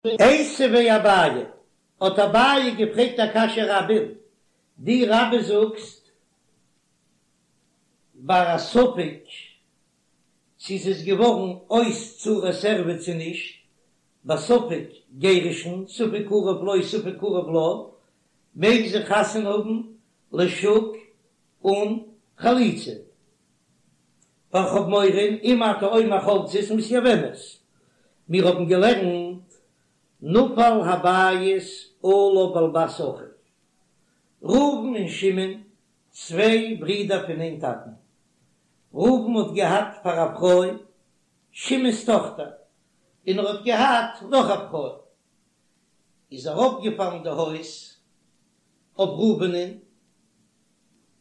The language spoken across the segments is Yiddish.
איתיביה אביי, האט אביי געפרעגט א קשיא רבה'ן, דו רבה זאגסט ביי א ספק צו ס'איז געווארן אויס צרת ערווה צו נישט, בספק גירושין, ספק קרוב לו ספק קרוב לה, מעג זי חתונה האבן לשוק אן חליצה, ווייל כ'האב מורא אם אתה אומר חולצת מתייבמת, מיר האבן געלערנט נפל הבית עליו ועל בת אחיו, ראובן און שמעון צוויי ברידער פון איין טאטן, ראובן האט געהאט פאר א פרוי שמעון'ס טאכטער, און ער האט געהאט נאך א פרוי, איז ארויפגעפאלן די הויז אויף ראובנ'ן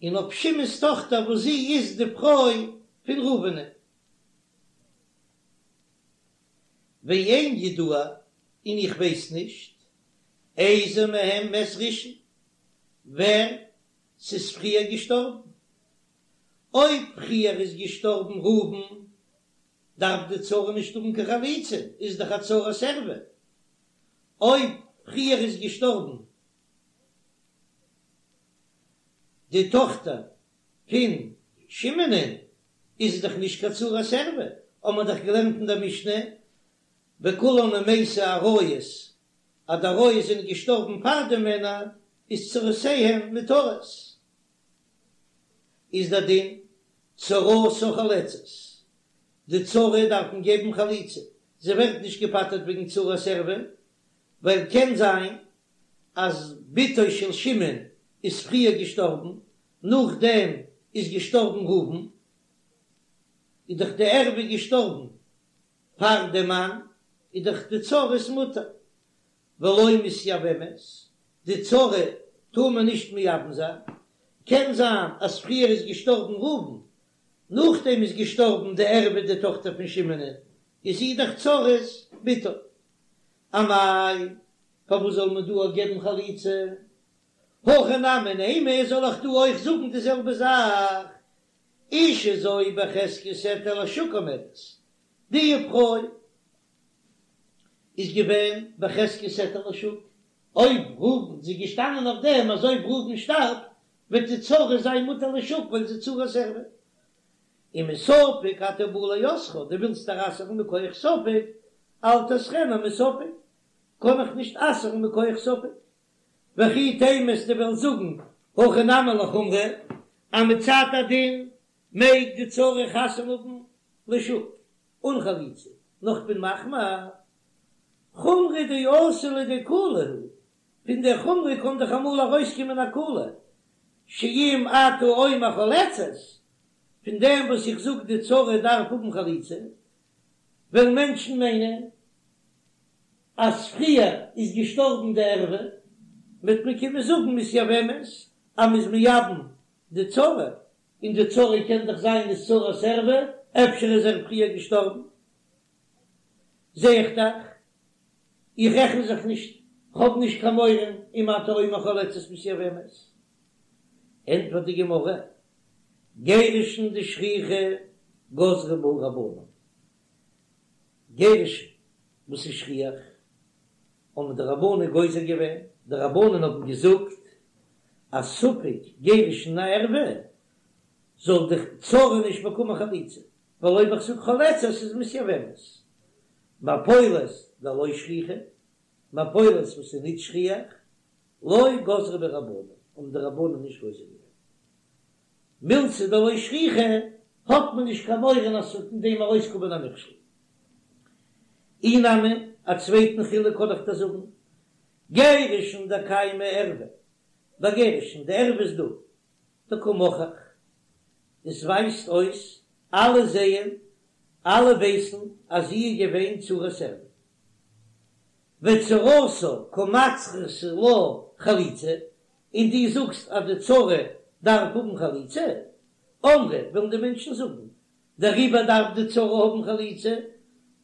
און אויף שמעון'ס טאכטער וואס זי איז די פרוי פון ראובנ'ן. ואין ידוע, און איך ווייס נישט, איזה מהם מת ראשון, ווער ס'איז פריער געשטארבן. אויב פריער איז געשטארבן ראובן, דארף די צרה נישט האבן קיין חליצה, איז דאך א צרת ערווה. אויב פריער איז געשטארבן די טאכטער פון שמעונ'ען, איז עס דאך נישט קיין צרת ערווה, האבן מיר דאך געלערנט אין דער משנה, בכולן אם מתו עריות, אז די עריות זענען געשטארבן פאר די מענער, איז צרותיהן מותרות. איז דער דין, צרתה חולצת, די צרה דארף מען געבן חליצה, זי ווערט נישט געפטר'ט וועגן צרת ערווה, ווייל קען זיין אז בתו של שמעון איז פריער געשטארבן, נאכדעם איז געשטארבן ראובן, איז דאך די ערווה געשטארבן פאר די מאן, איז דאך די צרה איז מותר, ולא מתייבמת, די צרה טאר מען נישט מייבם זיין, קען זיין אז פריער איז געשטארבן ראובן, נאכדעם איז געשטארבן די ערווה די טאכטער פון שמעונ'ען, איז זי דאך צרת בתו. אמאי, פארוואס זאל מען דא אויך געבן חליצה? הכא נמי נימא, זאל איך דא אויך זאגן די זעלבע זאך? אשה זו בחזקת היתר לשוק עומדת, די פרוי איז געווען בחזקת היתר לשוק, אויב ראובן, זי איז געשטאנען אויף דעם אז אויב ראובן שטארבט וועט די צרה זיין מותר לשוק ווייל זי איז צרת ערווה. ומספק אתה בא לאוסרה, דו ווילסט איר אסר'ן מכח ספק, אל תאסרנה מספק, קען איך נישט אסר'ן מכח ספק. וכי תימא אז דו וועסט זאגן הכא נמי לחומרא, אז מצד הדין מעג די צרה חתונה האבן לשוק אן חליצה, נאר כ'בין מחמיר, חומרא דאתי לידי קולא הוא, פון דער חומרא קען דאך אמאל ארויסקומען א קולא, שאם אתה אומר חולצת, פון דעם וואס איך זאג די צרה דארף האבן חליצה, וועלן מענטשן מיינען אז פריער איז געשטארבן די ערווה, וועט מען קומען זאגן מתייבמת אז מ'איז מייבם די צרה, און די צרה קען דאך זיין איז צרת ערווה, אפשר איז ער פריער געשטארבן. זע איך דאך, איך רעכן זיך נישט, כ'האב נישט קיין מורא אם אתה אומר חולצת מתייבמת. ענטפערט די גמרא, גירושין דשכיחי גזרו בהו רבנן, גירושין וואס איז שכיח, האבן די רבנן גוזר געווען, די רבנן האבן געזאגט אז ספק גירושין א ערווה זאל די צרה נישט באקומען חליצה, ווייל אויב איך זאג חולצת איז מתייבמת. מפולת דלא שכיחא, מפולת וואס איז נישט שכיח, לא גזרו בהו רבנן, האבן די רבנן נישט גוזר געווען. מילתא דלא שכיחא, האט מען נישט קיין מורא אז ס'וועט אין דעם ארויסקומען א מכשול. אי נמי, א צווייטן חילוק קען איך דיר זאגן, גירושין דקיימא ערווה, ביי גירושין, די ערווה איז דא, דקא מוכח, עס ווייזט אויס, אלע זעען, אלע ווייסן אז זי איז געווען צרת ערווה. וצרתה קא מצרכא לה חליצה, און דו זאגסט אז די צרה דארף האבן חליצה, אמרי וועלן די מענטשן זאגן, דעריבער דארף די צרה האבן חליצה,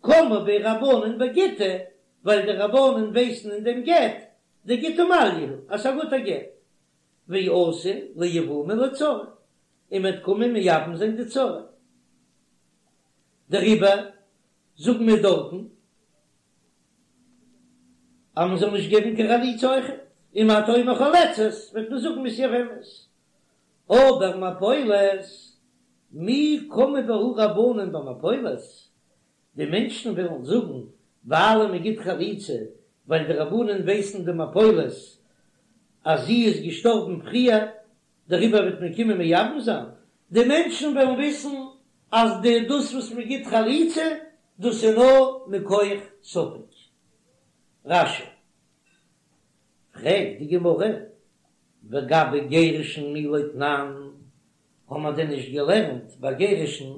קמו ביה רבנן בגיטא, ווייל די רבנן ווייסן אין דעם גט, דגיטא מעליא הוא, אז ס'איז א גוטער גט, ואתו ליבומי לצרה, און מ'וועט קומען מייבם זיין די צרה. דעריבער זאגן מיר דארטן. אז מען זאל נישט געבן קיין חליצה אויכעט, אם אתה אומר חולצת וועט מען זאגן מתייבמת, אבער מפולת, מי קמו בהו רבנן במפולת, די מענטשן וועלן זאגן ווייל מען גיט חליצה ווייל די רבנן ווייסן די מפולת אז זי איז געשטארבן פריער דעריבער וועט מען קומען מייבם זיין, די מענטשן וועלן וויסן אז די דאס וואס מען גיט חליצה דאס איז נאר מכח ספק. רש"י. פרעגט די גמרא, וגבי גירושין מי לא תנן, האבן מיר דען נישט געלערנט ביי גירושין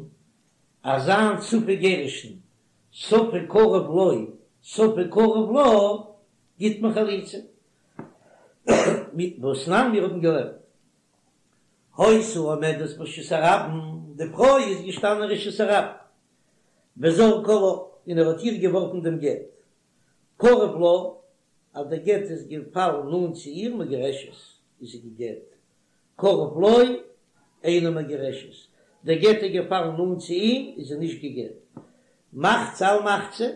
אז אזא ספק גירושין, ספק קרוב לו ספק קרוב לה, גיט מען חליצה? והתנן מיר האבן געלערנט היתה עומדת ברשות הרבים, די פרוי איז געשטאנען אין רשות הרבים, וזרקה לה, און ער האט איר געווארפן דעם גט, קרוב לה, אז דער גט איז געפאלן נאנט צו איר מגורשת, איז זי גע'גט, קרוב לו, אינה מגורשת, דער גט איז געפאלן נאנט צו אים, איז זי נישט גע'גט. מחצה על מחצה,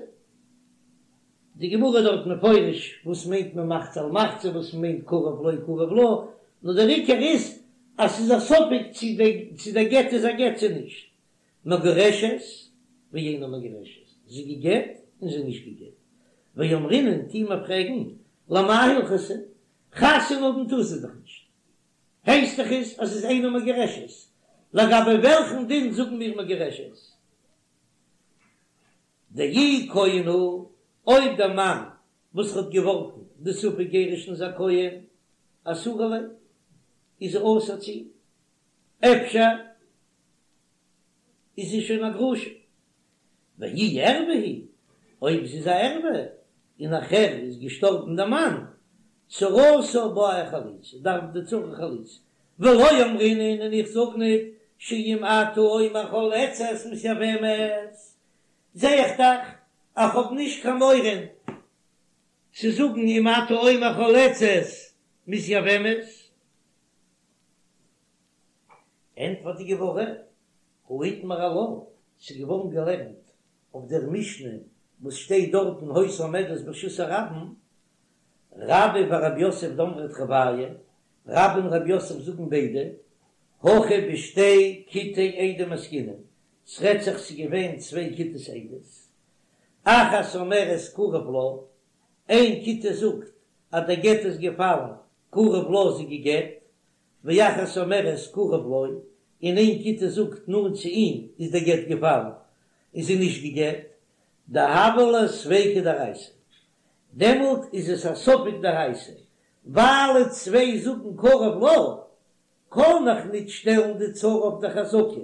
די גמרא איז דארט מפרש וואס מיינט מען מחצה על מחצה, וואס מיינט קרוב לו קרוב לה, נאר דער עיקר איז אז ס'איז א ספק צו דער גט איז א גט צו נישט. מגורשת ואינה מגורשת, זי גע'גט און זי נישט גע'גט. ואמרינן טוהן מיר פרעגן, למאי הלכתא? חתונה האבן טאר זי דאך נישט. הייסט דאך עס אז ס'איז אינה מגורשת. לגבי וועלכן דין זאגן מיר מגורשת? דאי כהן הוא, אויב דער מאן וואס האט געווארפן די ספק גירושין איז א כהן, אסורה ליה, איז זי אסור צו אים. אפשר איז זי שוין א גרושה. ואי ערוה היא, אויב זי איז א ערוה, און נאכהער איז געשטארבן דער מאן, צרתה בעיא חליצה, דארף די צרה חליצה. ולא אמרינן און איך זאג ניט שאם אתה אומר חולצת מתייבמת, זע איך דאך אז כ'האב נישט קיין מורא צו זאגן אם אתה אומר חולצת מתייבמת. ענטפערט די גמרא, הא איתמר עלה, ס'איז געווארן געלערנט אויף דער משנה וואס שטייט דארטן היתה עומדת ברשות הרבים, רבה ורב יוסף דאמרי תרוייהו, רבה און רב יוסף זאגן ביידע, הכא בשתי כיתי עדים עסקינן, ס'רעדט זיך ס'איז געווען צוויי כיתות עדות, אחת אומרת קרוב לה, איין כיתה זאגט אז דער גט איז געפאלן קרוב לה זי גע'גט, ואחת אומרת קרוב לו, און איין כיתה זאגט נאנט צו אים איז דער גט געפאלן און זי נישט גע'גט, דהוה ליה ספיקא דאורייתא, דעמאלט איז עס א ספק דאורייתא, ווייל צוויי זאגן קרוב לה, קען איך ניט שטעלן די צרה אויף די חזקה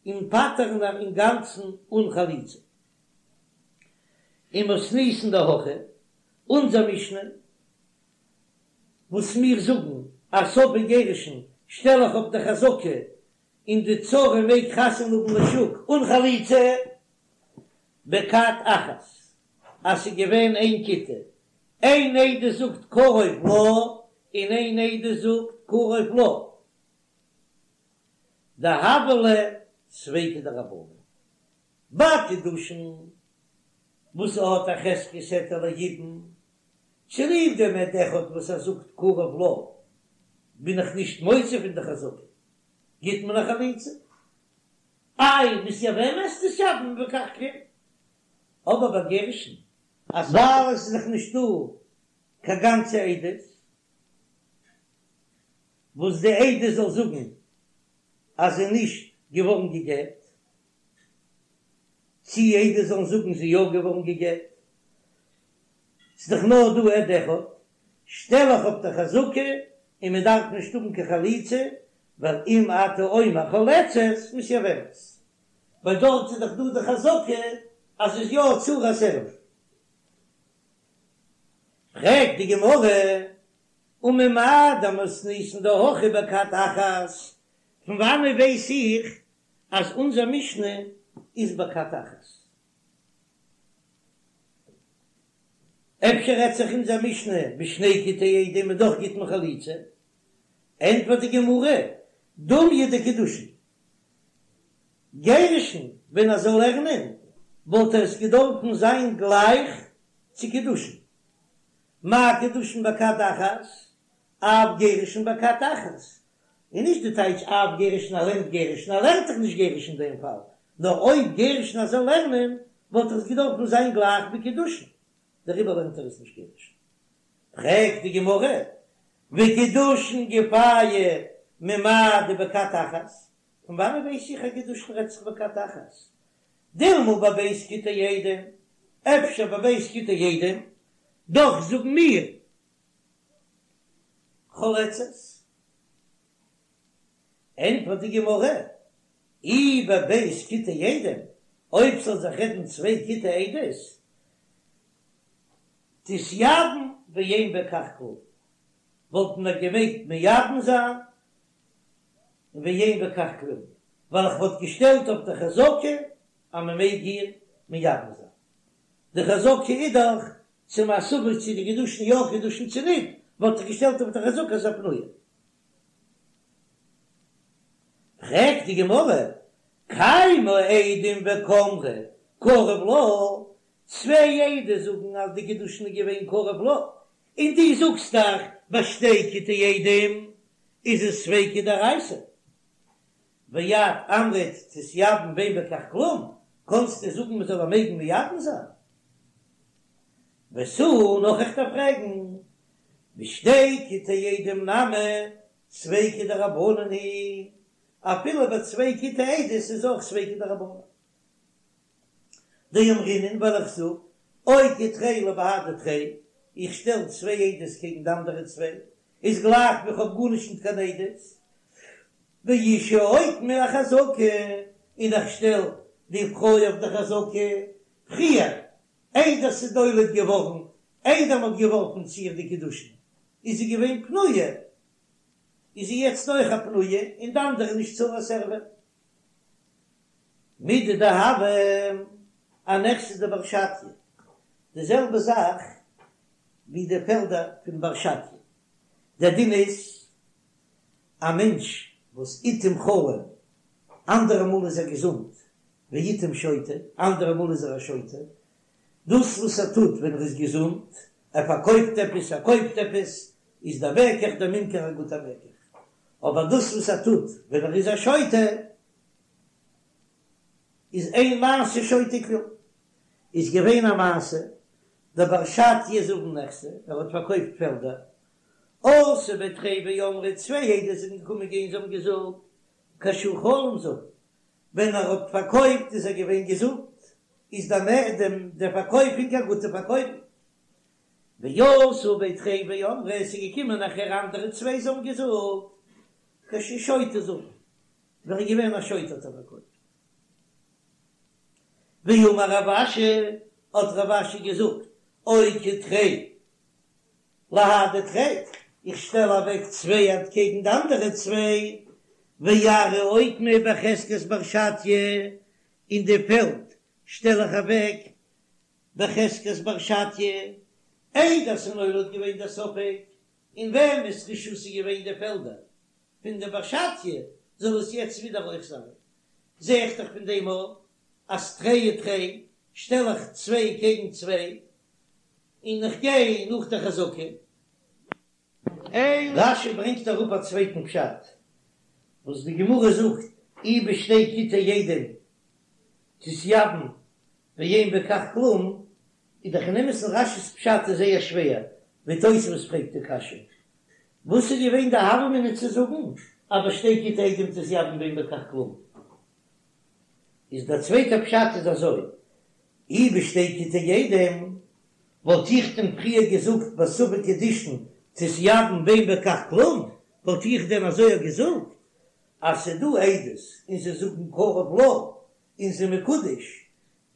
און פטר'ן איר אינגאנצן אן חליצה. ומתניתין דהכא, אונזער משנה וואס מיר זאגן אז ספק גירושין שטעל איך אויף די חזקה און די צרה מעג חתונה האבן לשוק אן חליצה בכת אחת אז ס'איז געווען איין כיתה, איין עדות זאגט קרוב לה און איין עדות זאגט קרוב לו, דהוה ליה ספיקא דרבנן ביי קידושין וואס ס'האט א חזקת היתר ליבום צוליב דעם עד אחד וואס ער זאגט קרוב לה בין איך נישט מוציא פון די חזקה, גיט מען א חליצה. איי מתייבמת תתייבם בכך כלום, אבער ביי גירושין אז ווייל עס איז דאך נישט דא קיין גאנצע עדות וואס די עדות זאל זאגן אז זי איז נישט געווארן גע'גט, צי עדות זאלן זאגן זי איז יא געווארן גע'גט, ס'איז דאך נאר דא עד אחד, שטעל איך אויף די חזקה און מען דארף נישט האבן קיין חליצה, ווייל אם אתה אומר חולצת מתייבמת, ווייל דארט איז דאך דא די חזקה אז ס'איז יא צרת ערוה. פרעגט די גמרא, וממאי דמתניתין דהכא בכת אחת, פון וואנעט ווייס איך אז אונזער משנה איז בכת אחת? אפשר רעדט זיך אונזער משנה בשני כיתי עדים און דאך גיט מען חליצה? ענטפערט די גמרא, דומיא דקידושין. גירושין, ווען ער זאל לערנען וואלט עס געדארפן זיין גלייך צו קידושין. מה קידושין בכת אחת, אף גירושין בכת אחת, און נישט די טייטש אף גירושין ער לערנט גירושין, ער לערנט דאך נישט גירושין אין דעם פאל, נאר אויב גירושין ער זאל לערנען וואלט עס געדארפן זיין גלייך ווי קידושין, דעריבער לערנט ער עס נישט גירושין. פרעגט די גמרא, וקידושין גופייהו ממאי דבכת אחת, פון וואנען ווייס איך אז קידושין רעדט זיך בכת אחת? דילמא בב' כיתי עדים, אפשר בב' כיתי עדים, דאך זאגן מיר חולצת. ענטפערט די גמרא, אי בב' כיתי עדים, אויב ס'זאל זיך רעדן צוויי כיתי עדות, תתייבם ואין בכך כלום, וואלט מען געמעגט מייבם זיין ואין בכך כלום, ווייל איך וואלט געשטעלט אויף די חזקה אז מען מעג איר מייבם זיין. די חזקה איז דאך צו מ'איז ספק צו די קידושין יא קידושין צו ניט, וואלט איך געשטעלט אויף די חזקה אז פנויה. פרעגט די גמרא, קיימא עדים וקאמרי קרוב לה, צוויי עדות זאגן אז די קידושין איז געווען קרוב לה, און דו זאגסט דאך ביי שתי כיתי עדים איז עס ספיקא דאורייתא, ואת אמרת תתייבם ואין בכך כלום, קאנסטו זאגן מען זאל איר מעגן מייבם זיין? ותו נאך איך דארף פרעגן, בשתי כיתי עדים נמי ספיקא דרבנן היא, אפילו ביי צוויי כיתי עדות איז אויך ספיקא דרבנן. דאמרינן ווייל איך זאג, אוקי תרי לבהדי תרי, איך שטעל צוויי עדות קעגן די אנדערע צוויי, איז גלייך ווי כ'האב גארנישט ניט קיין עדות, ואשה אוקמה אחזקה, און איך שטעל די פרוי אויף די חזקה, פריער, איידער ס'איז נולד געווארן, איידער מ'האט געווארפן צו איר די קידושין, איז זי געווען פנויה, איז זי יעצט אויך א פנויה, און די אנדערע נישט צרת ערווה. מידי דהוה אנכסי דבר שטיא, די זעלבע זאך ווי די פעלדער פון בר שטיא, דער דין איז א מענטש וואס עתים חלים, אנדערע מאל איז ער געזונט, ועתים שוטה, אנדערע מאל איז ער א שוטה, דאס וואס ער טוט ווען ער איז געזונט, ער פארקויפט עפעס, ער קויפט עפעס, איז דער מקח דער ממכר א גוטער מקח, אבער דאס וואס ער טוט ווען ער איז א שוטה, איז אין מעשה שוטה כלום. איז געווען א מעשה, דבר שטיא זבין נכסי, ער האט פארקויפט פעלדער, אתו בי תרי ואמרי, צוויי עדות זענען געקומען גיין זיי האבן געזאגט, כשהוא חלים זבין, ווען ער האט פארקויפט איז ער געווען געזונט, איז דער דעם דער פארקויפונג א גוטע פארקויפונג. ואתו בי תרי ואמרי, עס איז געקומען נאכער אנדערע צוויי זיי האבן געזאגט, כשהוא שוטה זבין, ווען ער איז געווען א שוטה האט ער פארקויפט. ואמר רב אשי, האט רב אשי געזאגט, אוקי תרי להדי תרי, איך שטעל אוועק צוויי אנטקעגן די אנדערע צוויי, וארעא אוקמה בחזקת בר שטיא, און די פעלד שטעל איך אוועק בחזקת בר שטיא, איידער ס'איז נולד געווען דער ספק אין וועמענס רשות איז געווען די פעלדער פון די בר שטיא, זאל עס יעצט ווידער אויך זיין. זע איך דאך פון דעם אויך אז תרי ותרי שטעל איך צוויי קעגן צוויי, און איך גיי נאך די חזקה. רש"י ברענגט אראפ א צווייטן פשט וואס די גמרא זאגט אי בשתי כיתי עדים תתייבם ואין בכך כלום, איז דאך אין אמת'ן רש"י'ס פשט איז זייער שווער, ווי תוספות פרעגט די קשיא, וואס איז געווען די הוה אמינא צו זאגן אז בשתי כיתי עדים תתייבם ואין בכך כלום? איז דער צווייטער פשט איז אזוי, אי בשתי כיתי עדים וואלט איך דען פריער געזאגט בספק קידושין תתייבם ואין בכך כלום, וואלט איך דען אזוי געזאגט אז ס'דא עדות און זיי זאגן קרוב לה און זי מקודש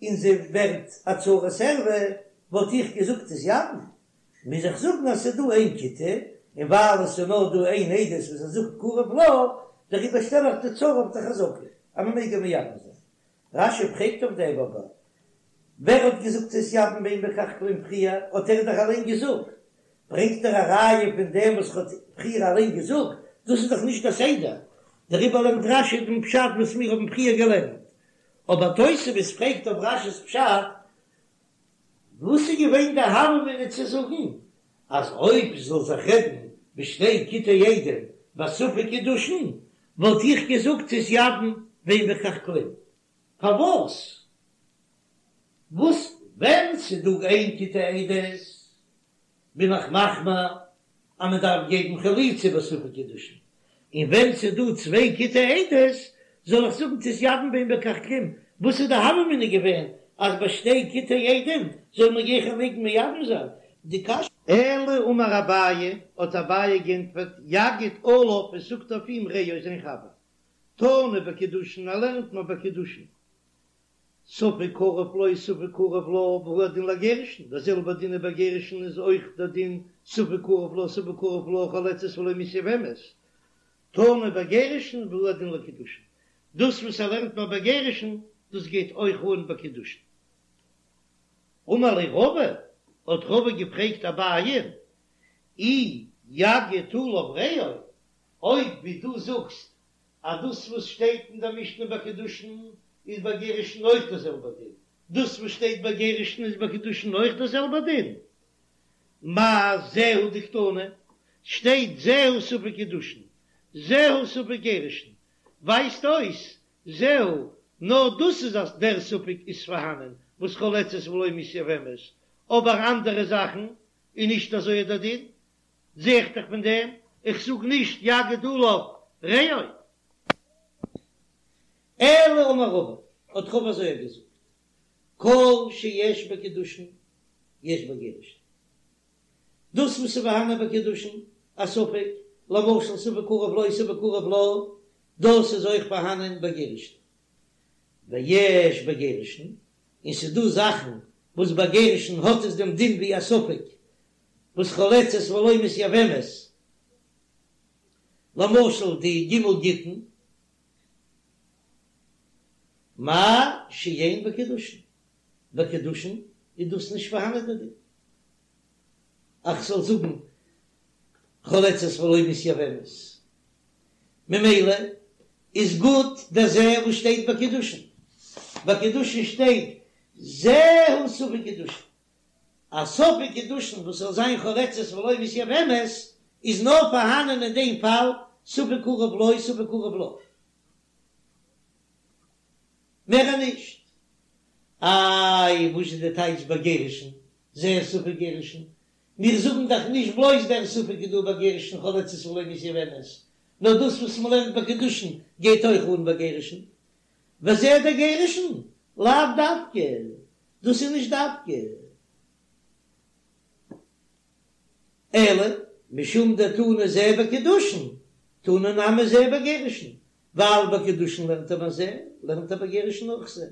און זי ווערט א צרת ערווה, וואלט איך געזאגט תתייבם, מוז איך זאגן אז ס'איז דא איין כיתה, און ווייל עס איז נאר דא איין עדות וואס ער זאגט קרוב לה, דעריבער שטעל איך די צרה אויף די חזקה אז מ'מעג איר מייבם זיין. רש"י פרעגט אויף דעם אבער ווער האט געזאגט תתייבם ואין בכך כלום פריער האט ער דאך אליין געזאגט, ברענגט ער א ראיה פון דעם וואס ער האט פריער אליין געזאגט, דאס איז דאך נישט א סדר, דעריבער לערנט רש"י דעם פשט וואס מיר האבן פריער געלערנט, אבער תוספות פרעגט אויף רש"י'ס פשט, וואס איז געווען די הוה אמינא צו זאגן? אז אויב זאל זיך רעדן בשתי כיתי עדים בספק קידושין וואלט איך געזאגט תתייבם ואין בכך כלום. פארוואס? וואס ווען ס'דא איין כיתה עדות בין איך מחמיר אז מען דארף געבן חליצה בספק קידושין, און ווען ס'איז דא צוויי כיתי עדות זאל איך זאגן תתייבם ואין בכך כלום, וואס איז די הוה אמינא געווען אז ביי שתי כיתי עדים זאל מען גיכער מעגן מייבם זיין די קשיא? אלא אמר אביי, האט אביי גענטפערט, יגיד עליו, עס זאגט אויף אים רעו זיין חבר, תנא בקידושין, ער לערנט מיר ביי קידושין, ספק קרוב לו ספק קרוב לה והוא הדין לגירושין, דער זעלבער דין איז ביי גירושין איז אויך דער דין ספק קרוב לו ספק קרוב לה חולצת ולא מתייבמת, תנא בגירושין והוא הדין לקידושין, דאס וואס ער לערנט מיר ביי גירושין דאס גייט אויך אן ביי קידושין. אמר ליה רבא, האט רבא געפרעגט אביי, אי יגיד עליו רעו, אויב ווי דו זאגסט אז דאס וואס שטייט אין דער משנה ביי קידושין איז ביי גירושין אויך דער זעלבער דין, דאס וואס שטייט ביי גירושין איז ביי קידושין אויך דער זעלבער דין, מאי זהו דקתני, שטייט זהו ספק קידושין, זהו ספק גירושין, ווייזט אויס זהו, נאר דאס איז אז דער ספק איז פארהאנען וואס חולצת ולא מתייבמת, אבער אנדערע זאכן איז נישט אזוי דער דין, זע איך דאך פון דעם, איך זאג נישט יגיד עליו רעו. אלא אמר רבא, האט רבא אזוי געזאגט, כל שיש בקידושין יש בגירושין, דאס וואס איז פארהאנען ביי קידושין א ספק, למשל ספק קרוב לו ספק קרוב לה, דאס איז אויך פארהאנען ביי גירושין, ויש בגירושין, און ס'איז דא זאכן וואס ביי גירושין האט עס דעם דין ווי א ספק, וואס חולצת ולא מתייבמת, למשל די ג' גיטין, מה שאין בקידושין, ביי קידושין איז דאס נישט פארהאנען דער דין, איך זאל זאגן חולצת ולא מתייבמת, ממילא איז גוט דער זה וואס שטייט ביי קידושין, ביי קידושין שטייט זהו ספק קידושין, א ספק קידושין וואס זאל זיין חולצת ולא מתייבמת איז נאר פארהאנען אין דעם פאל ספק קרוב לו ספק קרוב לה, מער נישט. איי וואס איז די טייטש ביי גירושין זהו ספק גירושין? מיר זאגן דאך נישט בלויז דער ספק איז דא ביי גירושין חולצת ולא מתייבמת, נאר דאס וואס מ'לערנט ביי קידושין גייט אויך אן ביי גירושין. וזה דגירושין? לאו דווקא, דאס איז נישט דווקא, אלא משום דתנא זה בקידושין, תנא נמי זה בגירושין, ווייל ביי קידושין לערנט ער ביי זה, לערנט ער ביי גירושין אויך זה.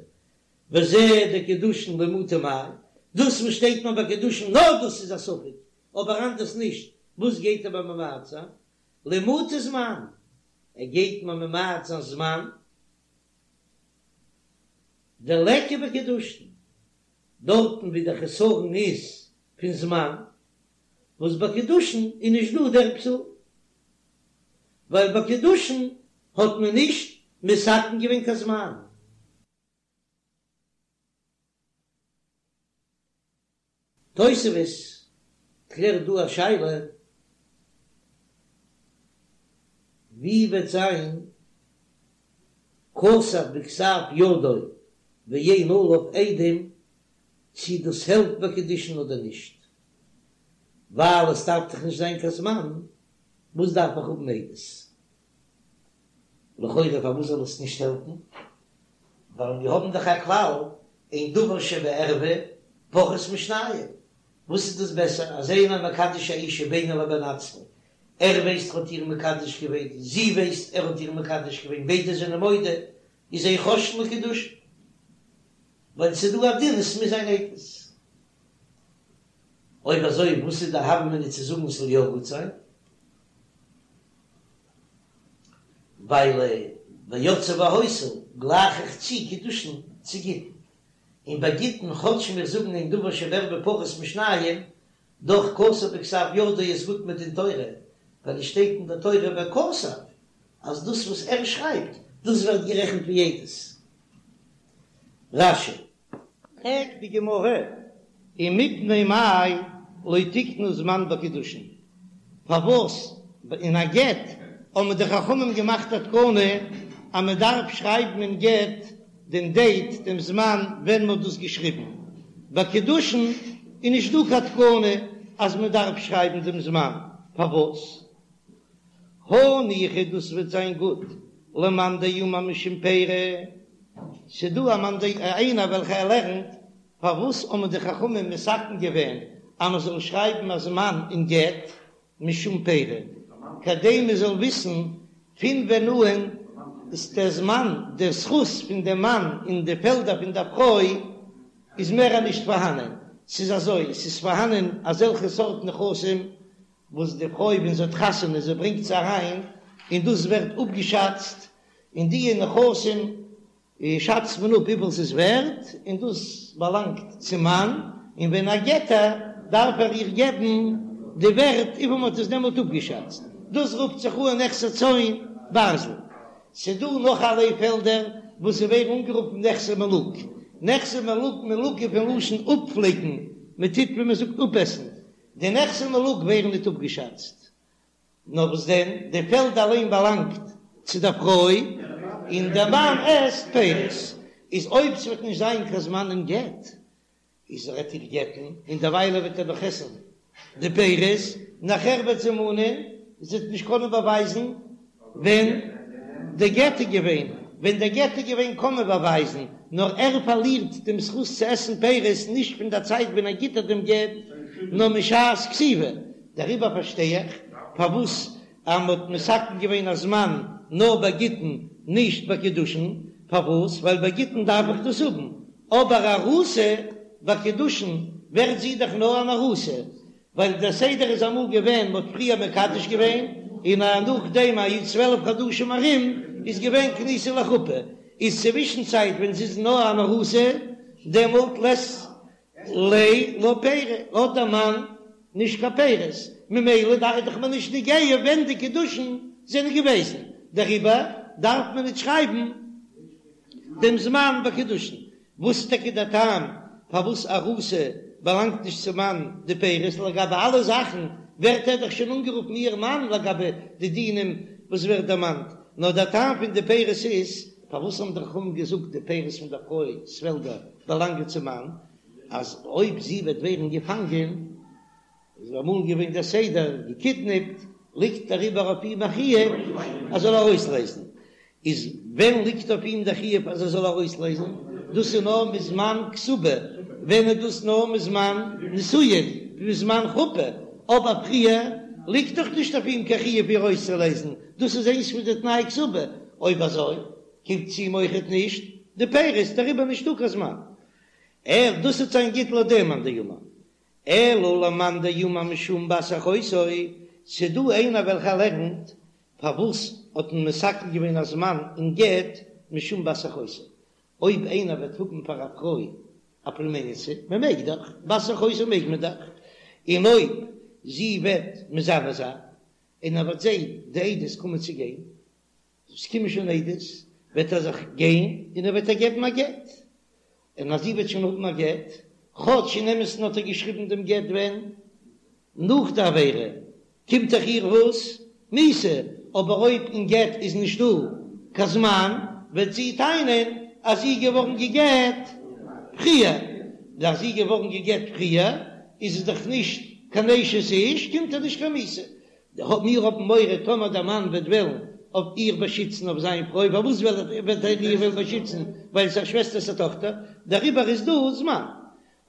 וזה דקידושין למעוטי מאי, דאס וואס שטייט מיר ביי קידושין נאר דאס איז א ספק, אבער אנדערס נישט, וואס גייט ער מיר ממעט זיין? למעוטי זמן, ער גייט מיר ממעט זיין זמן דליכא בקידושין, דארטן ווי דער חסרון איז פון זמן, וואס ביי קידושין איז נישט דא דער פסול, ווייל ביי קידושין האט מען נישט מתקן געווען קיין זמן. תוספות קלערט דא א שאלה, ווי וועט זיין כתב בכתב ידו ואין עליו עדים, צי דאס העלפט ביי קידושין אדער נישט, ווייל עס דארף דאך נישט זיין קיין זמן, וואס דארף איך האבן עדות? לכאורה פארוואס זאל עס נישט העלפן? ווייל מיר האבן דאך א כלל אין דבר שבערווה פחות משניים, וואס איז דאס בעסער אז איינער מקדש א אישה בינו לבין עצמו, ער ווייסט ער האט איר מקדש געווען, זי ווייסט ער האט איר מקדש געווען, ביידע זענען מודה, איז אין חוששין לקידושין, ווייל ס'איז דא א דין עס מוז זיין עדות. אויב אזוי וואס איז די הוה אמינא צו זאגן ס'זאל יא גוט זיין? ווייל ויצאה והיתה גלייך איך צו קידושין צו גיטין, און ביי גיטין כאטש מיר זאגן אין דבר שבערווה פחות משניים, דאך כתב בכתב ידו איז גוט מדין תורה, ווייל עס שטייט אין די תורה וכתב אז דאס וואס ער שרייבט דאס ווערט גערעכנט ווי עדות. רש"י. פרעגט די גמרא, ומפני מאי. לא תיקנו זמן בקידושין? פארוואס אין א גט האבן די חכמים געמאכט א תקנה אז מען דארף שרייבן אין גט דעם דעיט, דעם זמן ווען מען האט דאס געשריבן? ביי קידושין איז נישט דא קיין תקנה אז מען דארף שרייבן דעם זמן, פארוואס? הניחא דאס וועט זיין גוט למאן דאמר משום פירי, ס'דא א מאן דאמר איינער וועלכע ער לערנט פארוואס האבן די חכמים מתקן געווען אז מען זאל שרייבן א זמן אין גט משום פירי, כדי מען זאל וויסן פון ווען אן איז דער זמן, דער זכות פון דעם מאן אין די פעלדער פון דער פרוי איז מער נישט פארהאנען, ס'איז אזוי, ס'איז פארהאנען אזעלכע סארט נכסים וואס די פרוי ווען זי האט חתונה זי ברענגט זיי אריין און דאס ווערט אפגעשאצט, און די נכסים שאצט מען אפ וויפיל ס'איז ווערט און דאס באלאנגט צום מאן, און ווען ער גט איר דארף ער איר געבן די ווערט וויפיל מ'האט עס דעמאלט אפגעשאצט, דאס רופט זיך אן נכסי צאן ברזל. ס'דא נאך אלע פעלדער וואס זיי ווערן אנגערופן נכסי מלוג, נכסי מלוג מלוג איז פון לשון אפפליקן, מ'טוט ווי מ'זאגט אפעסן, די נכסי מלוג ווערן ניט אפגעשאצט, נאר וואס דען, די פעלד אליין באלאנגט צו דער פרוי, און דער מאן עסט פירות. איז אויב ס'וועט נישט זיין קיין זמן אין גט, איז ער וועט איר גט'ן, און דערוויילע וועט ער נאך עסן די פירות, נאכער וועט זי מאנען, זי וועט נישט קענען באווייזן ווען די גט איז געווען, ווען די גט איז געווען קען מען באווייזן, נאר ער פארלירט דעם זכות צו עסן פירות נישט פון דער צייט ווען ער גיט איר דעם גט, נאר משעת כתיבה. דעריבער פארשטיי איך פארוואס אז מען האט מתקן געווען א זמן נאר ביי גיטין נישט ביי קידושין, פארוואס? ווייל ביי גיטין דארף איך דאס האבן, אבער ארוסה ביי קידושין ווערט זי דאך נאר אן ארוסה, ווייל דער סדר איז אמאל געווען מ'האט פריער מקדש געווען און נאכדעם א י 12 חדשים ארום איז געווען כניסה לחופה, איז צווישן צייט ווען זי איז נאר אן ארוסה דעמאלט לית ליה לה פירי האט דער מאן נישט קיין פירות ממילא דאך איז דאך מיר נישט נוגע ווען די קידושין זענען געוועזן דעריבער דארף מען נישט שרייבן דעם זמן ביי קידושין. וואס איז טאקע דער טעם פארוואס ארוסה באלאנגט נישט צום מאן די פירות? לגבי אלע זאכן ווערט ער דאך שוין אנגערופן איר מאן לגבי די דינים וואס ווערט דערמאנט, נאר דער טעם פון די פירות איז, פארוואס האבן די חכמים געזאגט די פירות פון דער פרוי'ס פעלדער באלאנגען צום מאן, אז אויב זי וועט ווערן געפאנגען, איז אמאל געווען דער סדר, געקידנעפט, ליגט דעריבער אויף אים א חיוב אז זאל ארויסלייזן, איז ווען ליגט אויף אים דער חיוב אז ער זאל ארויסלייזן? דאס איז נאר מזמן כתובה, ווען איז דאס נאר מזמן נישואין, מזמן חופה, אבער פריער ליגט דאך נישט אויף אים קיין חיוב איר ארויסצולייזן, דאס איז איינס פון די תנאי כתובה, אויב אזוי קומט צו אים אויכעט נישט די פירות, דעריבער נישטא קיין זמן, ער דאס וועט זיין גוט לויט דעם מאן דאמר. אלא למאן דאמר משום בת אחותו, ס'דא איינער וועלכער לערנט פארוואס האט מען מתקן געווען א זמן אין גט משום בת אחותו, אויב איינער וועט האבן פאר א פרוי א פלומעניצע, מען מעג דאך, בת אחותו מעג מען דאך, און אויב זי וועט מזנה זיין און ער וועט זען די עדות קומען צו גיין, עס קומען שוין עדות, וועט ער זיך גיין און ער וועט איר געבן א גט, און אז זי וועט שוין האבן א גט, כאטש אין אמת'ן האט ער געשריבן דעם גט ווען? נאך די עבירה, קומט דאך איר וואס? מיתה, אבער אויב אין גט איז נישטא קיין זמן, וועט זי טענה'ן אז זי איז געווארן גע'גט פריער, און אז זי איז געווארן גע'גט פריער איז עס דאך נישט קיין אשת איש, קומט איר נישט קיין מיתה, מיר האבן מורא טאמער דער מאן וועט וועלן אויף איר באשיצן אויף זיין פרוי, פארוואס וועט ער איר וועלן באשיצן? ווייל עס איז א שוועסטער'ס א טאכטער, דעריבער איז דא זמן.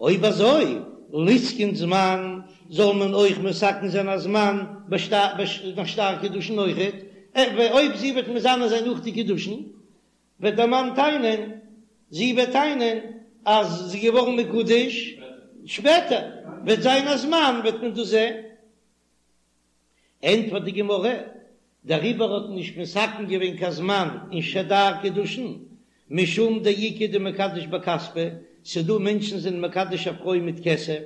אויב אזוי, ליתקין זמן, זאל מען אויך מתקן זיין א זמן ביי שטר קידושין אויכעט, אויב זי וועט מזנה זיין נאך די קידושין, וועט דער מאן טענה'ן, זי וועט טענה'ן אז זי איז געווארן מקודש שפעטער, וועט זיין א זמן וועט מען דאס זען. ענטפערט די גמרא, דעריבער האט מען נישט מתקן געווען קיין זמן אין שטר קידושין, משום דאיכא דמקדש בכספא, ס'דא מענטשן זענען מקדש א פרוי מיט כסף,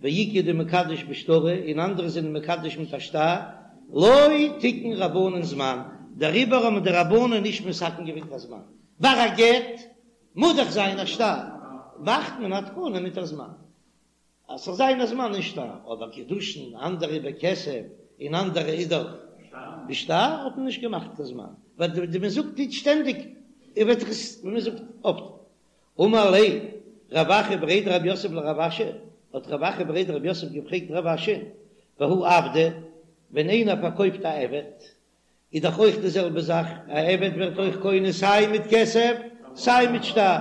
ואיכא דמקדש בשטרא, און אנדערע זענען מקדש מיט א שטר, לא תיקון רבנן זמן, דעריבער האבן די רבנן נישט מתקן געווען קיין זמן, ביי א גט מוז דאך זיין א שטר, מאכט מען א תקנה מיט א זמן. אז ס'זאל זיין א זמן אין שטר, אבער קידושין, אנדערע בכסף און אנדערע איז דאך בשטר, האט מען נישט געמאכט קיין זמן, ווייל די מען זאגט נישט שטענדיג און וועט זיך עס ווי מען זאגט אפט. אמר ליה רב אחא בריה דרב יוסף לרב אשי, האט רב אחא בריה דרב יוסף געפרעגט רב אשי, והא עבדא, ווען איינער פארקויפט א עבד, איז דאך אויך די זעלבע זאך, א עבד ווערט אויך קונה סיי מיט כסף סיי מיט שטר,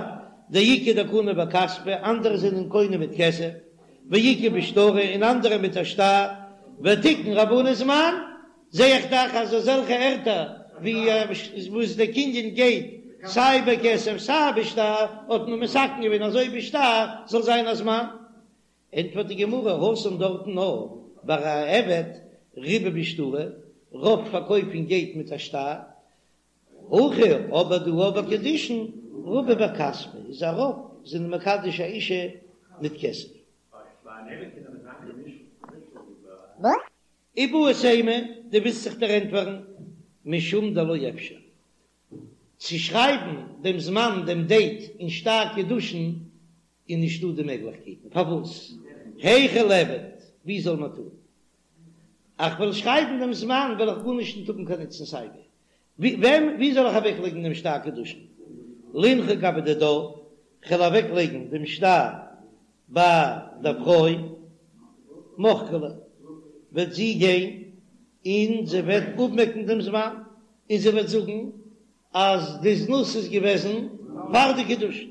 דאיכא דקני בכספא, אנדערע זענען קונה מיט כסף, ואיכא בשטרא, און אנדערע מיט א שטר, ותיקון רבנן זמן, זע איך דאך אז אזעלכע ערטער ווי וואס די קנין גייט סיי בכסף סיי בשטר, האט מען מתקן געווען אז אויך בשטר זאל זיין א זמן. ענטפערט די גמרא, התם דארטן נאר ביי א עבד רובא בשטרא, רוב פארקויפן גייט מיט א שטר, הכא אבער דא ביי קידושין רובא בכספא איז א רוב זענען מקדש א אישה מיט כסף. איבעית אימא, דו ווילסט זיך דערענטפערן משום דלא אפשר צו שרייבן דעם זמן דעם דעיט אין שטר קידושין איז נישטא די מעגליכקייטן, פארוואס? היכי ליעבד, ווי זאל מען טון? איך וועל שרייבן דעם זמן וועל איך גארנישט נישט האבן קיין נוצן סייווי, וועם ווי זאל איך אוועק לייגן דעם שטר קידושין? לינחה גבי דידה, כ'וועל אוועק לייגן דעם שטר ביי דער פרוי, מחקא ליה, וועט זי גיין און זי וועט אפמעקן דעם זמן, און זי וועט זאגן אז די זנות איז געוועזן פאר די קידושין.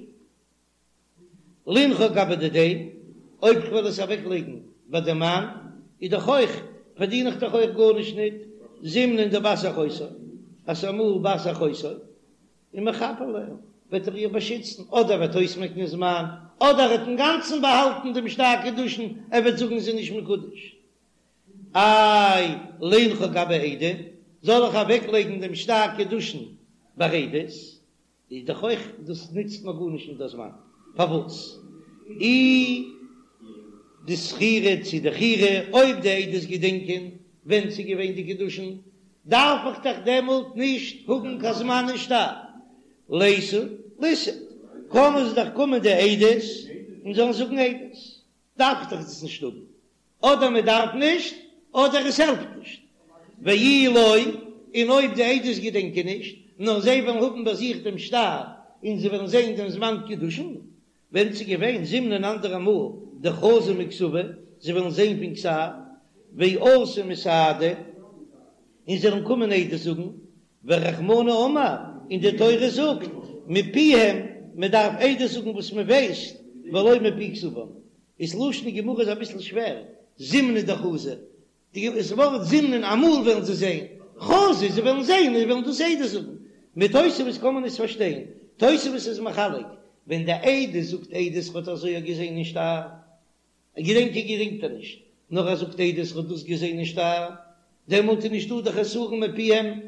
לינחה גבי דידיה, אויב כ'וועל עס אוועק לייגן ביי די מאן, איז דאך אויך, פארדין איך דאך אויך גארנישט ניט, זימנין דבת אחותו, אז ס'איז אמאל בת אחותו, ומחפה עליה, וועט ער איר באשיצן, אדער וועט אויסמעקן זמן, אדער ער וועט אינגאנצן באהאלטן דעם שטר קידושין, ער וועט זאגן זי איז נישט מקודש. איי, לינחה גבי עדים, זאל איך אוועק לייגן דעם שטר קידושין ביי עדות? איז דאך אויך דאס נוצט מיר גארנישט נישט דער זמן, פארוואס אי דזכירי צו דחיירי, אויב די עדות געדענקען ווען ס'איז געווען די קידושין, דארף איך דאך דעמאלט נישט האבן קיין זמן אין שטר, ליתו ליסהיד, קענען זיי דאך קומען די עדות און זאלן זאגן עדות, דארף איך דאך דאס נישט האבן. אדער מען דארף נישט, אדער עס העלפט נישט. ואי לא, און אויב די עדות געדענקען נישט, נאר זיי וועלן האבן ביי זיך דעם שטר און זיי וועלן זען דעם זמן קידושין, ווען ס'איז געווען זימנין אנדערע מאל דחזו מכתבא, זיי וועלן זען פון כתב, ואתו מסהדי, און זיי וועלן קומען עדות זאגן, ורחמנא אמר, און די תורה זאגט, מפיהם, מען דארף עדות זאגן וואס מען ווייסט, ולא מפי כתבם. איז לשון גמרא איז אביסל שווער, זימנין דחזו, דאס ווארט זימנין אמאל וועלן זיי זען, חזו זיי וועלן זען און זיי וועלן דאס עדות זאגן. מיט תוספות קען מען עס פארשטיין, תוספות איז מחלק, ווען די עדות זאגט עדות האט אזוי געזען אין שטר, געדענקען געדענקט ער נישט, נאר ער זאגט עדות ער האט דאס געזען אין שטר, דעמאלט איז נישטא די חסרון מפיהם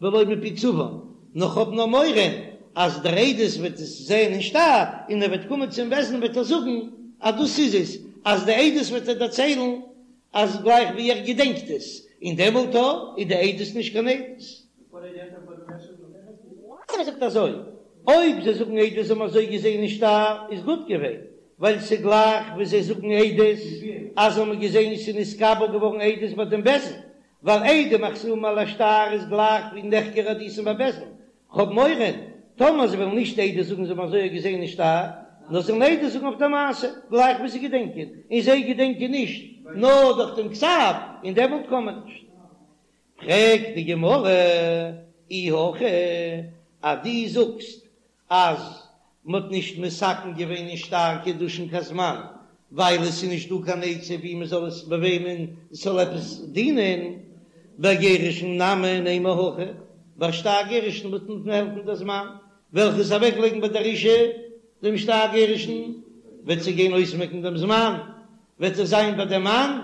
ולא מפי כתבם, נאר כ'האב נאר מורא אז דער עדות וועט עס זען אין שטר און ער וועט קומען צום בית דין וועט ער זאגן אז דאס איז עס, אז די עדות וועט ער דערציילן אז גלייך ווי ער געדענקט עס, און דעמאלט איז די עדות נישט קיין עדות. ער זאגט אזוי, אויב זיי זאגן עדות זיי האבן אזוי געזען אין שטר איז גוט געווען, ווייל ס'גלייך ווי זיי זאגן עדות אז זיי האבן געזען ס'איז נתקבל געווארן עדות ביי דעם בית דין, ווייל עדים החתומים על השטר איז גלייך ווי נחקרה עדותן בבית דין, כ'האב מורא טאמער זיי וועלן נישט עדות זאגן זיי האבן אזוי געזען אין שטר, נאר זיי וועלן עדות זאגן אויף דער מעשה, גלייך ווי זיי געדענקען, און זיי געדענקען נישט נאר דורך דעם כתב, און דעמאלט קען מען נישט. פרעגט די גמרא, אי הכי, אז דו זאגסט אז מ'האט נישט מתקן געווען אין שטר קידושין קיין זמן, ווייל עס איז נישט דא קיין עצה ווי מ'זאל עס ביי וועמען עס זאל עפעס דינען, בגירושין נמי נימא הכי, ביי שטר גירושין וועט נישט העלפן דער זמן, וועל איך עס אוועק לייגן ביי דער אישה דעם שטר גירושין, וועט זי גיין אויסמעקן דעם זמן, וועט עס זיין ביי דעם מאן,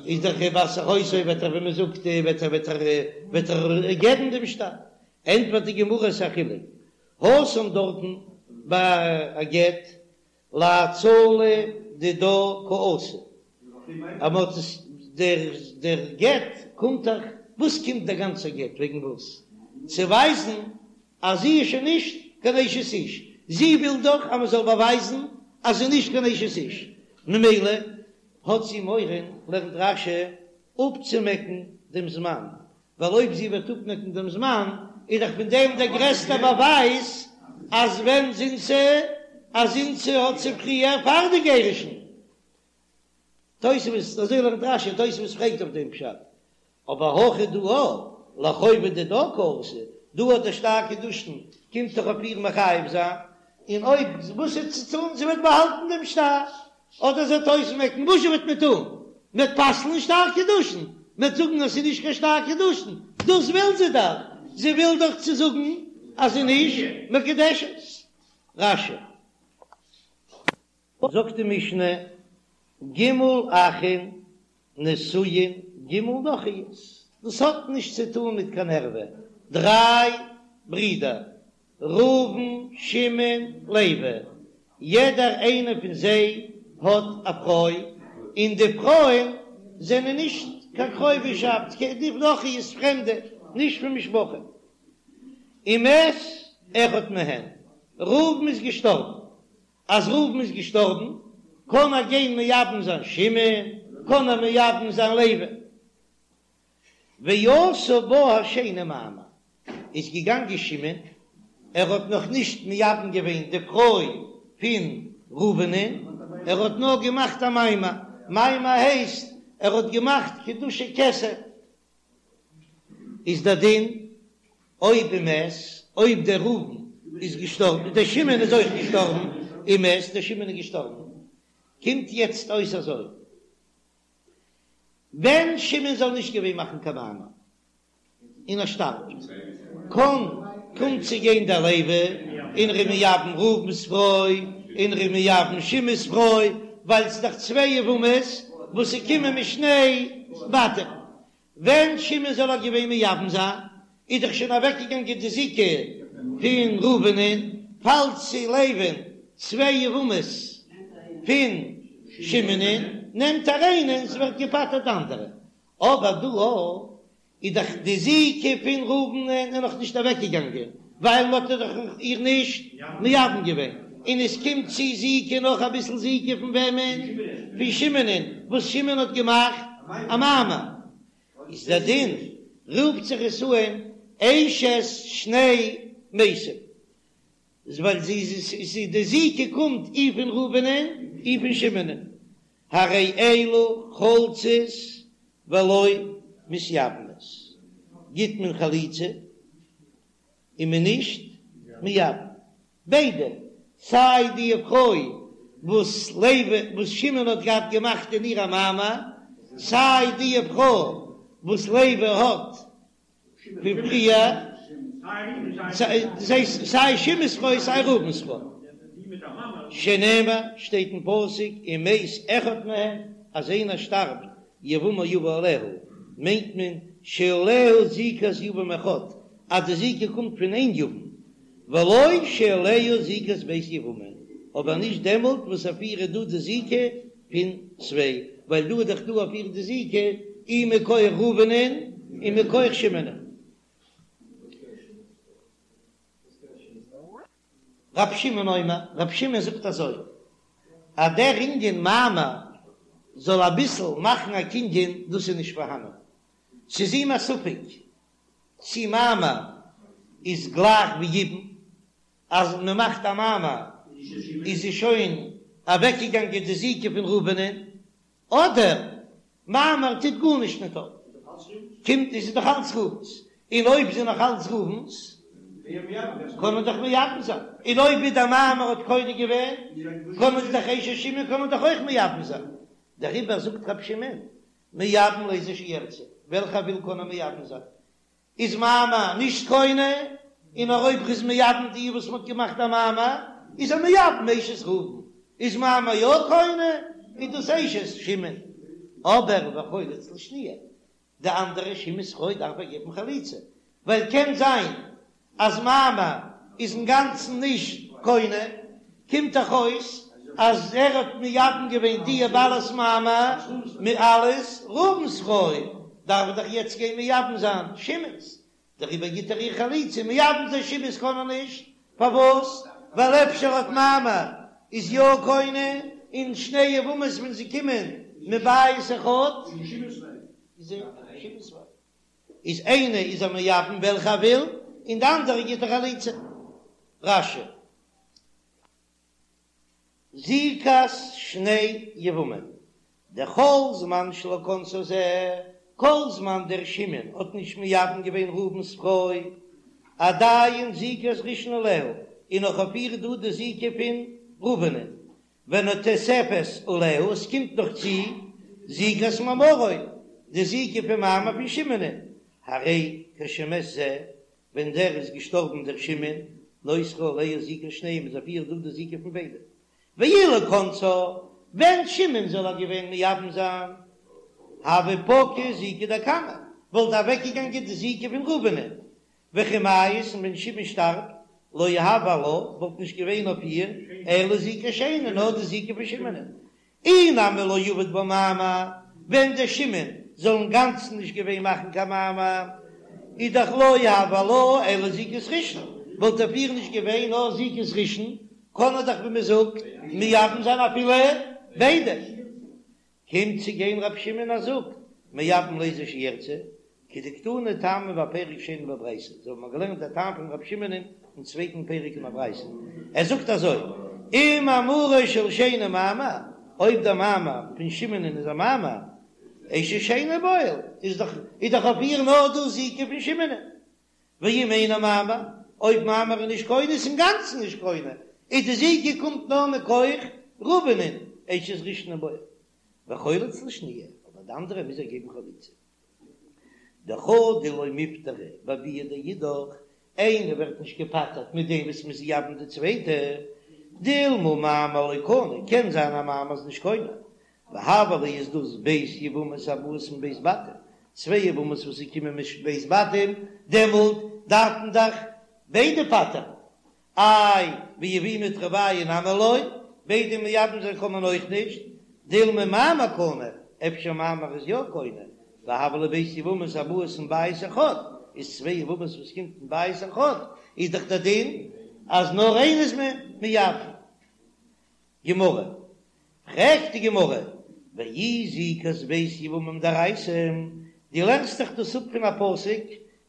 איז דאך בת אחותו וועט ער ווי מען זאגט וועט ער וועט ער וועט ער געבן דעם שטר, ענטפערט די גמרא ס'איז א חילוק, התם דארטן ביי א גט להצלה דידה קאתי, אז מען האט עס דער דער גט קומט דאך, וואס קומט דער גאנצער גט וועגן וואס? צו ווייזן אז זי איז שוין נישט קיין אשת איש, זי וויל דאך אז מען זאל באווייזן אז זי איז נישט קיין אשת איש. ממילא האט זי מורא, לערנט רש"י, אפצומעקן דעם זמן, ווייל אויב זי וועט אפמעקן דעם זמן, איז דאך פון דעם דער גרעסטער באווייז אז ווען זינתה, אז זינתה האט זי פריער פאר די גירושין. תוספות, אזוי לערנט רש"י, תוספות פרעגט אויף דעם פשט, אבער הכא דא לחובה דידה קאתי, דא האט דער שטר קידושין קומט דאך אויף איר מחייב זיין, און אויב וואס איז צו טון, זי וועט באהאלטן דעם שטר, אדער זי וועט אויסמעקן, וואס זשע וועט מען טון? מען וועט פסל'ן שטר קידושין, מען וועט זאגן אז ס'איז נישט קיין שטר קידושין, דאס וויל זי דאך, זי וויל דאך צו זאגן אז זי איז נישט מקודשת. רש"י. זאגט די משנה, ג' אחין נשואין ג' נכריות, דאס האט נישט צו טון מיט קיין ערווה, דריי ברידער, ראובן, שמעון, לוי, יעדער איינער פון זיי האט א פרוי, און די פרויען זענען נישט קיין קרובישאפט, די נכריות פרעמדע, נישט פון משפחה. ומת אחד מהן, ראובן איז געשטארבן, אז ראובן איז געשטארבן, קען ער גיין מייבם זיין שמעון, קען ער מייבם זיין לוי. ועשה בה השני מאמר, איז געגאנגען שמעון, ער האט נאך נישט מייבם געווען די פרוי פון ראובנ'ען, ער האט נאר געמאכט א מאמר, מאמר הייסט ער האט געמאכט קידושי כסף, איז דער דין אויב ומת, אויב דער ראובן איז געשטארבן, דער שמעון איז אויך געשטארבן, ומת, דער שמעון איז געשטארבן, קומט יעצט אויס אזוי, ווען שמעון זאל נישט געווען מאכן קיין מאמר, און ער שטארבט, קען קומט צו גיין דער לוי און ער איז מייבם ראובן'ס פרוי, און ער איז מייבם שמעון'ס פרוי, ווייל ס'איז דאך צוויי יבמות וואס ס'קומען משני בתים. ווען שמעון זאל איר געווען מייבם זיין, איז דאך שוין אוועקגעגאנגען די זיקה פון ראובנ'ען, פאלט צו לוי'ן צוויי יבמות פון שמעונ'ען, נעמט ער איינע און ס'ווערט געפטר'ט די אנדערע. אבער דא איז דאך די זיקה פון ראובנ'ען איז נאך נישט אוועקגעגאנגען, ווייל מ'האט דאך איר נישט מייבם געווען, און עס קומט צו זיקה נאך אביסל זיקה פון וועמען? פון שמעונ'ען, וואס שמעון האט געמאכט א מאמר, איז דער דין רופט זיך עס אן אשת שני מתים, ווייל זי איז די זיקה קומט אי פון ראובנ'ען אי פון שמעונ'ען, הרי אלו חולצות ולא מתייבמות, גיט מען חליצה און מען נישט מייבם, ביידע, סיי די פרוי וואס לוי וואס שמעון האט געהאט געמאכט אין איר א מאמר, סיי די פרוי וואס לוי האט פון פריער, סיי שמעון'ס פרוי סיי ראובן'ס פרוי, שנאמר שטייט אין פסוק ומת אחד מהם אז איינער שטארבט יבמה יבא עליה, מיינט מען שעליה זיקת יבם אחד אז די זיקה קומט פון איין יבם, ולא שעליה זיקת ב' יבמים, אבער נישט דעמאלט וואס אויף איר איז דא די זיקה פון צוויי, ווייל דא איז דאך דא אויף איר די זיקה אי מכח ראובנ'ען און מכח שמעונ'ען. רב שמעון אומר, רב שמעון זאגט אזוי, אז דער ענין מאמר זאל אביסל מאכן א קנין, דאס איז נישט פארהאנען, ס'איז אים א ספק צי מאמר איז גלייך ווי יבום, אז מען מאכט א מאמר איז זי שוין אוועקגעגאנגען די זיקה פון ראובנ'ען, אדער מאמר טוט גארנישט ניט אויף, קומט איז זי דאך אלץ ראובן'ס, און אויב זי נאך אלץ ראובן'ס קען מען דאך מייבם זיין, און אויב ווי דער מאמר האט קונה געווען קען מען דאך אשת שמעון קען מען דאך אויך מייבם זיין, דעריבער זאגט רבי שמעון מייבם לאיזו שירצה, וועלכע ער וויל קען ער מייבם זיין, איז מאמר נישט קונה, און נאר אויב ר'איז מייבם די וואס מ'האט געמאכט א מאמר, איז ער מייבם אשת ראובן, איז מאמר יא קונה, איז דאס אשת שמעון, אבער וחולץ לשניה, די אנדערע שמעון'ס פרוי דארף ער געבן חליצה, ווייל קען זיין אז מאמר איז אינגאנצן נישט קונה, קומט דאך אויס אז ער האט מייבם געווען די בעלת מאמר מיט אלס ראובן'ס פרוי, דארף ער דאך יעצט גיין מייבם זיין שמעון'ס, דעריבער גיט ער איר חליצה, מייבם זיין שמעון'ס קען ער נישט, פארוואס? ווייל אפשר האט מאמר איז יא קונה. און שני יבמות ווען זיי קומען מבית אחד איז איינע איז ער מייבם וועלכע ער וויל און די אנדערע גיט ער חליצה. רש"י. זיקת שני יבמים, דכל זמן שלא כנסה זה, כל זמן דער שמעון האט נישט מייבם געווען ראובן'ס פרוי, עדיין זיקת ראשון עליה, איז נאך אויף איר דא די זיקה פון ראובן'ען, ונתוספת עליה, עס קומט נאך צו זיקת מאמרו, די זיקה פון מאמר פון שמעונ'ען, הרי כשמת זה, ווען דער איז געשטארבן דער שמעון, נותרה עליה זיקת שניהם איז אויף איר דא די זיקה פון ביידע. ואילו כנסה, ווען שמעון זאל איר געווען מייבם זיין, הוה פקעה זיקה דקמא, וואלט אוועקגעגאנגען די זיקה פון ראובנ'ען, וכי מיית און ווען שמעון שטארבט, לא הוה עלה, וואלט נישט געווען אויף איר אלא זיקת שני, נאר די זיקה פון שמעונ'ען. אי נמי לא עבד בה מאמר, ווען דער שמעון זאל אינגאנצן נישט געווען מאכן קיין מאמר, איז דאך לא הוה עלה אלא זיקת ראשון, וואלט אויף איר נישט געווען נאר זיקת ראשון, קען ער דאך ווי מען זאגט מייבם זיין אפילו ביידע. קומט צו גיין רבי שמעון ער זאגט מייבם לאיזו שירצה, כדקתני טעמא בפרק שני בברייתא, אזוי האבן מיר געלערנט דער טעם פון רבי שמעון אין צווייטן פרק אין א ברייתא, ער זאגט אזוי, אם מאמרו של שני מאמר, אויב דער מאמר פון שמעונ'ען איז א מאמר, אשת שני בועל, איז דאך איז דאך אויף איר נאר דא זיקה פון שמעונ'ען, ואם אינו מאמר, אויב מאמר איז נישט קונה איז אינגאנצן נישט קונה, איז די זיקה קומט נאר מכח ראובנ'ען, אשת ראשון הוא בועל, וחולץ לשניה, אבער די אנדערע מוז ער געבן חליצה. דחדא לא מיפטרא בביאה דאידך, איינער ווערט נישט געפטר'ט מיט דעם וואס מ'איז מייבם די צווייטע, דילמא מאמר לא קני, קען זיין אז מאמר איז נישט קונה, והוה להו איז דאס ב' יבמות הבאות מב' בתים, צוויי יבמות וואס זיי קומען מב' בתים, דעמאלט דארף מען דאך ביידע פטר'ן, איי ויבומי תרוייהו נמי לא, ביידע מייבם זיין קען מען אויך נישט, דילמא מאמר קני, אפשר מאמר איז יא קונה, והוה להו ב' יבמות הבאות מבית אחד, איז צוויי יבמות וואס קומט מבית אחד, איז דאך דער דין אז נאר איינע איז מען מייבם. גמרא, פרעגט די גמרא, ואי זיקת ב' יבמים דאורייתא, דו לערנסט דאך דאס אפ פון א פסוק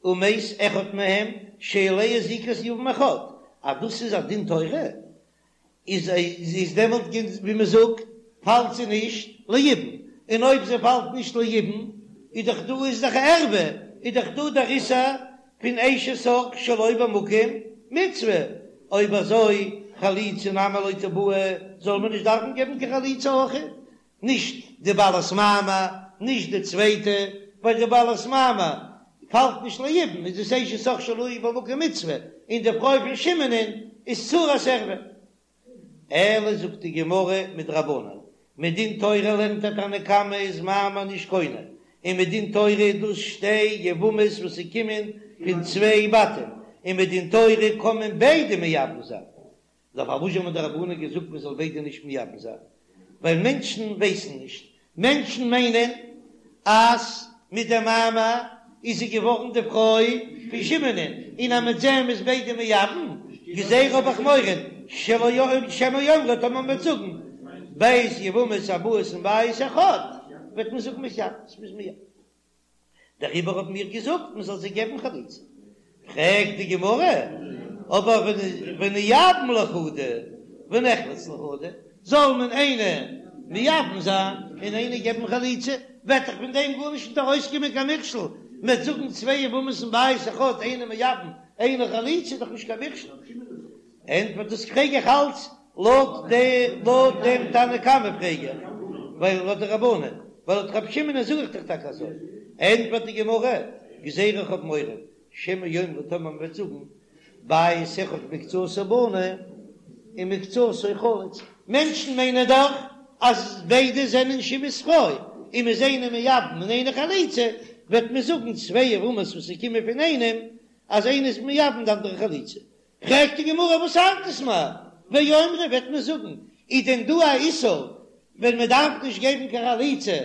ומת אחד מהם שעליה זיקת יבם אחד, אז דאס איז א דין תורה, איז איז דעמאלט ווי מען זאגט פאלט זי נישט ליבום, און אויב זי פאלט נישט ליבום איז דאך דא איז דאך ערווה, איז דאך דא דער איסור פון אשת אח שלא במקום מצוה, אויב אזוי חליצה נמי לא תיבעי, זאל מען נישט דארפן געבן קיין חליצה אויך, נישט די בעלת מאמר, נישט די צווייטע, ווייל די בעלת מאמר פאלט נישט ליבום, איז דאס אשת אח שלא במקום מצוה, און די פרוי פון שמעונ'ען איז צרת ערווה. אלא זאגט די גמרא מדרבנן, מדין תורה לערנט דער תנא קמא איז מאמר נישט קונה, און מדין תורה איז דאס שתי יבמות וואס ס'קומען פון צוויי בתים, און מדין תורה קען מען ביידע מייבם זיין, נאר פארוואס האבן די רבנן געזאגט מען זאל ביידע נישט מייבם זיין? ווייל מענטשן ווייסן נישט, מענטשן מיינען אז מיט דעם מאמר איז זי געווארן די פרוי פון שמעונ'ען, און אז מיט דעם איז ביידע מייבם, גזירה האב איך מורא שלא שמא יאמרו טאמער מ'וועט זאגן ב' יבמות הבאות מבית אחד וועט מען זאגן מתייבמות מ'איז מייבם. דעריבער האבן מיר געזאגט מען זאל זיי געבן חליצה. פרעגט די גמרא, אבער ונייבם לחדא ונחלוץ לחדא, זאל מען איינע מייבם זיין און איינע געבן חליצה, וועט דאך פון דעם גארנישט נישט ארויסקומען קיין מכשול, מען וועט זאגן צוויי יבמות מבית אחד איינע מייבם איינע חליצה איז דאך נישט קיין מכשול. ענטפערט דאס פרעג איך אלץ לויט די לויט דעם תנא קמא פרעג איך, ווייל לויט די רבנן, ווייל לויט רבי שמעון זאג איך דאך טאקע אזוי, ענטפערט די גמרא, גזירה איך האב מורא, שמא יאמרו טאמער מען וועט זאגן, בית אחד מקצתו בנוי ומקצתו חלוץ, מענטשן מיינען דאך אז ביידע זענען שמעון'ס פרוי, און מ'איז איינע מייבם און איינע חליצה, וועט מען זאגן צוויי יבמות וואס ס'קומען פון איינעם, אז איינע איז מייבם די אנדערע חליצה. פרעגט די גמרא וואס ארט עס מיר, ואומרי וועט מען זאגן, איז דען דא א איסור ווען מען דארף נישט געבן קיין חליצה?